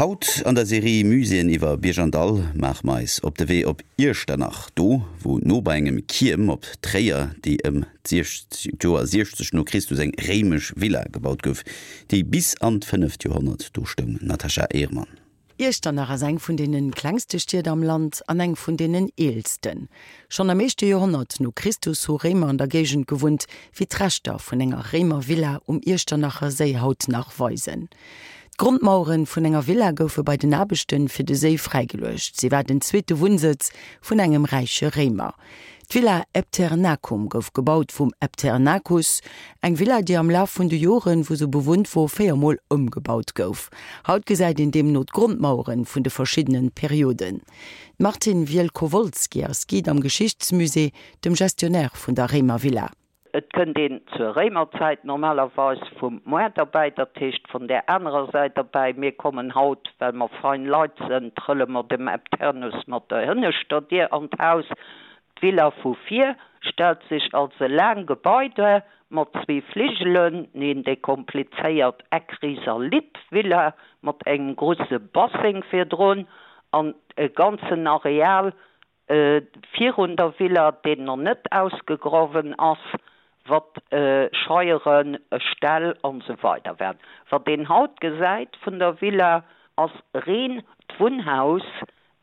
Haut an der Serie Muséeën iwwer Bierg an Dall maache mer eis op de Wee op Iechternach, do wou no bei engem Kierm op Tréier, déi ëm d'Joer 60 no Christus eng réimesch Villa gebaut gouf, déi bis an d'fënneft Joerhonnert do stoung. Natascha Ehrmann. Iechternach ass eng vun deene klengste Stied am Land an eng vun deenen eelsten. Schonn am éischte Joerhonnert no Christus hu Réimer an der Géigend gewunnt, wéi d'Reschter vun enger Réimervilla um Iechternacher Séi haut nach weisen. D'Grondmauere vun enger Villa goufe bei den Aarbechte fir de Séi fräigeluecht. Si war den zweete Wunnsëtz vun engem räiche Réimer. D'Villa Epternacum gouf gebaut vum Epternacus, eng Villa, déi am Laf vun de Joren, wou se bewunnt wor, 4 Mol ëmgebaut gouf. Haut gesäit een deemno d'Grondmauere vun de verschiddene Perioden. D'Martine Wielkowolski ass Guide am Geschichtsmusée, dem Gestionnaire vun der Réimervilla. Et kënnt een zur Réimerzäit normalerweis vum Moart erbäi, dat heescht vun där anerer Säit erbäi. Mir kommen haut, well mer fein Leit sënn, trëlle mer dem Epternus mat der hënneschter Dier an d'Haus. D'Villa vu vir stellt sech als e laang Gebai duer, mat zwee Fligelen, neen, déi komplizéiert Eckrisalit-Villa mat engem grusse Basseng virdrun an e ganzen Areal Virun der Villa, deen nach net ausgegrawen ass, wat Scheieren, Ställ an esou weider waren. Wat een haut gesäit vun der Villa, ass reen d'Wunnhaus,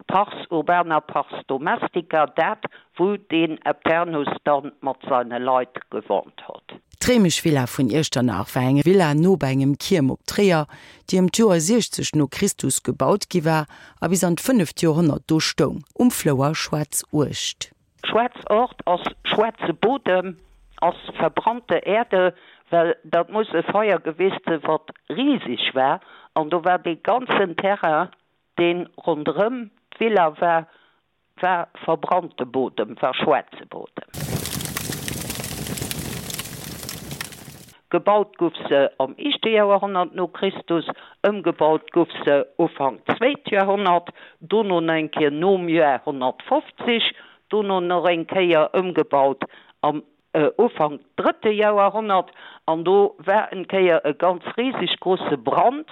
pars urbana, pars domestica, dat wou deen Epternus dann mat seine Leit gewohnt hott. D'réimesch Villa vun Iechternach war eng Villa no bei engem Kierm op Tréier, déi ëm d'Joer 60 no Christus gebaut gi war a bis an d'fënneft Joerhonnert do stoung, um Flouer Schwaarzuecht. Schwaarz Ort ass schwaarze Bodem, ass verbrannte Erde, well dat muss e Feier gewiescht sinn, wat riseg war, an do war dee ganzen Terrain, dee ronderëm d'Villa war, War verbrannte Bodem, war schwaarze Bodem. Gebaut guff se am éischte Joerhonnert no Christus, ëmgebaut guff se Ufank zweet Joerhonnert, dono nach eng Kéier nom Joer 150, dono nach eng Kéier ëmgebaut am Ufank drëtte Joerhonnert, an do war en Kéier e ganz riseg grusse Brand,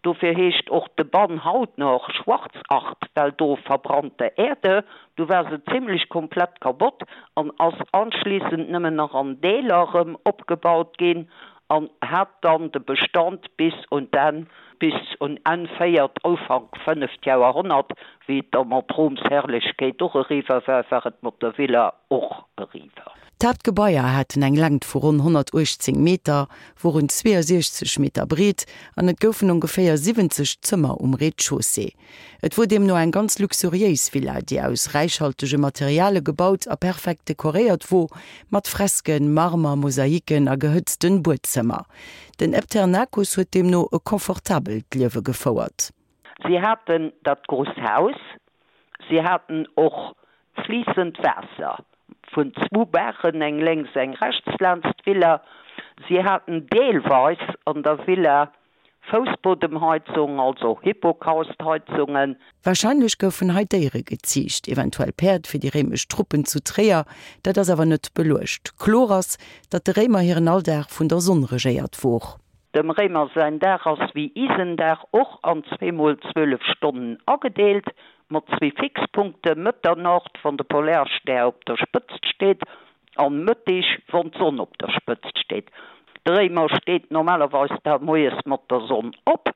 dofir heescht och de Bann haut nach Schwarzacht, well do verbrannte Erde, du war se zimlech komplett kabott an ass anschließend nëmmen nach an Deeler rëm opgebaut ginn an hat dann de Bestand bis un d'Enn, bis un Enn véiert, Ufank fënneft Joerhonnert, wéi et da mat Roms Herrlechkeet och eriwwer war, war et mat der Villa och eriwwer. D'Haaptgebaier haten eng Längt vu ronn 118 Meter, woren 62 Meter breet an et goufen ongeféier 70 Zëmmer um Rez-de-chaussée. Et wor deemno eng ganz luxuriéis Villa, déi aus räichhaltege Materiale gebaut a perfekt dekoréiert wor, mat Fresken, Marmer, Mosaiken a gehëtzten Buedzëmmer. Den Epternacus huet deemno e confortabelt Liewe gefouert. Si haten dat grousst Haus, si haten och fliissend Waasser vun zwou Baachen, eng lénks, eng rechts laanscht d'Villa. Si haten deelweis an der Villa Foussbodemheizung, also Hypocaustheizungen. Warscheinlech goufen hei Déiere geziicht, eventuell Päerd fir déi réimesch Truppen zu Tréier, dat ass awer net beluecht. Kloer ass, datt de Réimer hiren Alldag vun der Sonn regéiert wor. Dem Réimer säin Dag ass wéi isen Dag och an zweemol 12 Stonnen agedeelt, mat zwee Fixpunkte, Mëtternocht, wann de Polarstär op der Spëtzt steet, an Mëttig, wann d'Sonn op der Spëtzt steet. De Réimer steet normalerweis da moies mat der Sonn op,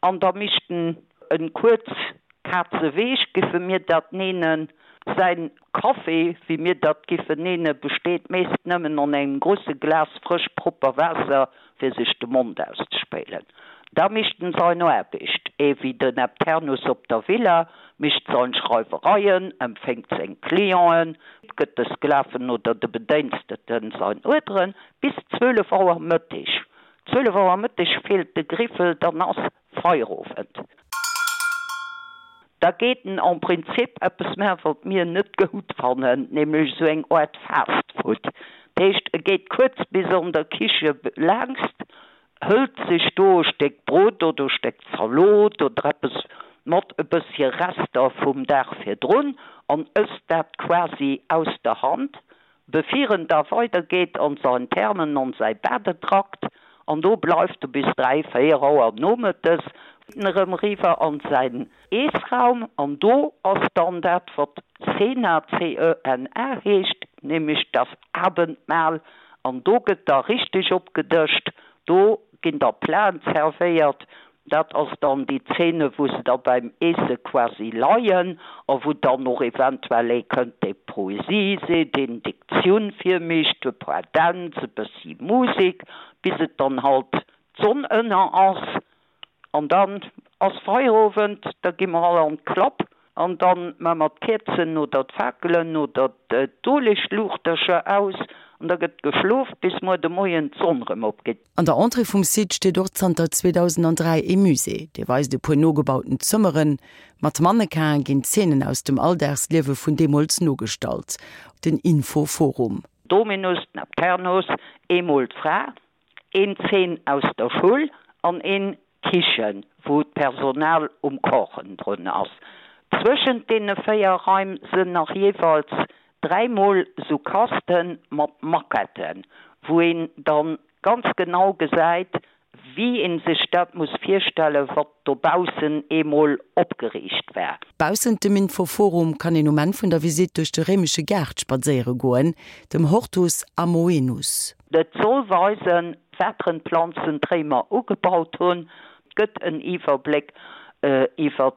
an da mischt en en kuerz Kazeweeg, giffe mir dat neenen. Säin Café, wéi mir dat giffen neenen, besteet meest nëmmen an engem grusse Glas frësch propper Waasser fir sech de Mond auszespéilen. Da mischt en sein Aarbecht, ee wéi den Epternus op der Villa, mischt sein Schreiwereien, empféngt seng Clienten, gëtt de Sklaven oder de Bedénsteten sein Uerderen, bis 12 Auer Mëttig. 12 Auer Mëttig feelt de Griffel, dann ass Feierowend. Da geet en en Prinzip eppes maachen, wat mir net goud fannen, nämlech esou eng Aart Fast Food. Dat heescht, e geet kuerz bis an der Kiche laangst, hëlt sech do e Stéck Brot oder e Stéck Zalot oder eppes mat e bëssche Rester vum Dag virdrun an ësst dat quasi aus der Hand. Bevir en da weider geet an sein Thermen an säi Badetrakt, an do bleift e bis 3, 4 Auer nomëttes. Erëm eriwwer an säin Eessraum an do ass dann dat wat Cena, C-E-N-A, heescht, nämlech das Abendmahl an do gëtt da richteg opgedëscht, do ginn da Platen zerwéiert, dat ass dann déi Zene wou se da beim Eesse quasi leien a wou dann och eventuell ee kënnt dee Poesie seet, een Diktioun virmécht, e puer Dänz, e bëssi Musek, bis et dann halt d'Sonn ënner ass. An dann ass Feierowend, da gi mer all an d'Klapp an dann maa mer d'Käerzen oder d'Fakelen oder d'Uelegluuchtercher aus an da gëtt geschlof bis muer de Moien d'Sonn rëm opgeet. An der Entrée vum Site steet och zanter 2003 ee Musée, dee weist e puer nogebauten Zëmmeren. Mat Mannequin'e ginn Zeenen aus dem Alldagsliewe vun deemools nogestallt. Den Info-Forum. Dominus, Nepternus, eemol d'Fra, Een Zeen aus der Schull an een Kichen, wou d'Personal um Kochen drun ass. Zwëschent deene 4 Raim sënn nach jeeweils 3 mol sou Kasten mat Maquetten, wou een dann ganz genau gesäit, wéi een sech dat muss virstellen, wat dobaussen eemol opgeriicht war. Baussent dem Infoforum kann een um Enn vun der Visitt duerch de réimesche Gaart spadséiere goen, dem Hortus Amoenus. Et soll weisen, wateren Planzen d'Réimer ugebaut hunn. Et gëtt en Iwwerbléck iwwer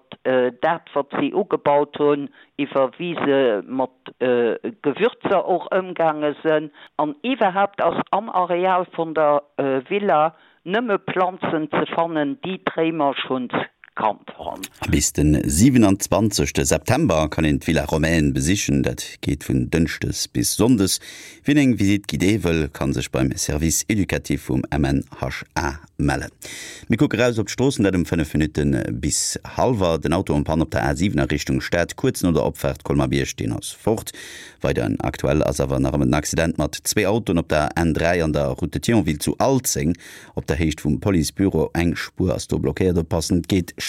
dat, wat si ugebaut hunn, iwwer wéi se mat Gewürzer och ëmgaange sënn. An iwwerhaapt ass am Areal vun der Villa Nëmme Planzen ze fannen, déi d'Réimer schonns kannt honn. Bis de 27 September kann een d'Villa Romaine besichen. Dat geet vun Dënschdes bis Sonndes. Wien eng Visite guidée wëll, kann sech beim Service éducatif vum MNHA mellen. Mir kucke raus op d'Stroossen, dat um 5 Minutte bis hallwer. Den Auto en panne op der A7 a Richtung Stad, kuerz no der Opfaart Colmar-Bierg, deen ass fort. Weider aktuell ass awer nach ëmmer den Accident mat zwee Autoen op der N3 an der Route de Thionville zu Alzeng op der Héicht vum Policebüro. Eng Spuer ass do blockéiert. Oppassen, et geet schlecht.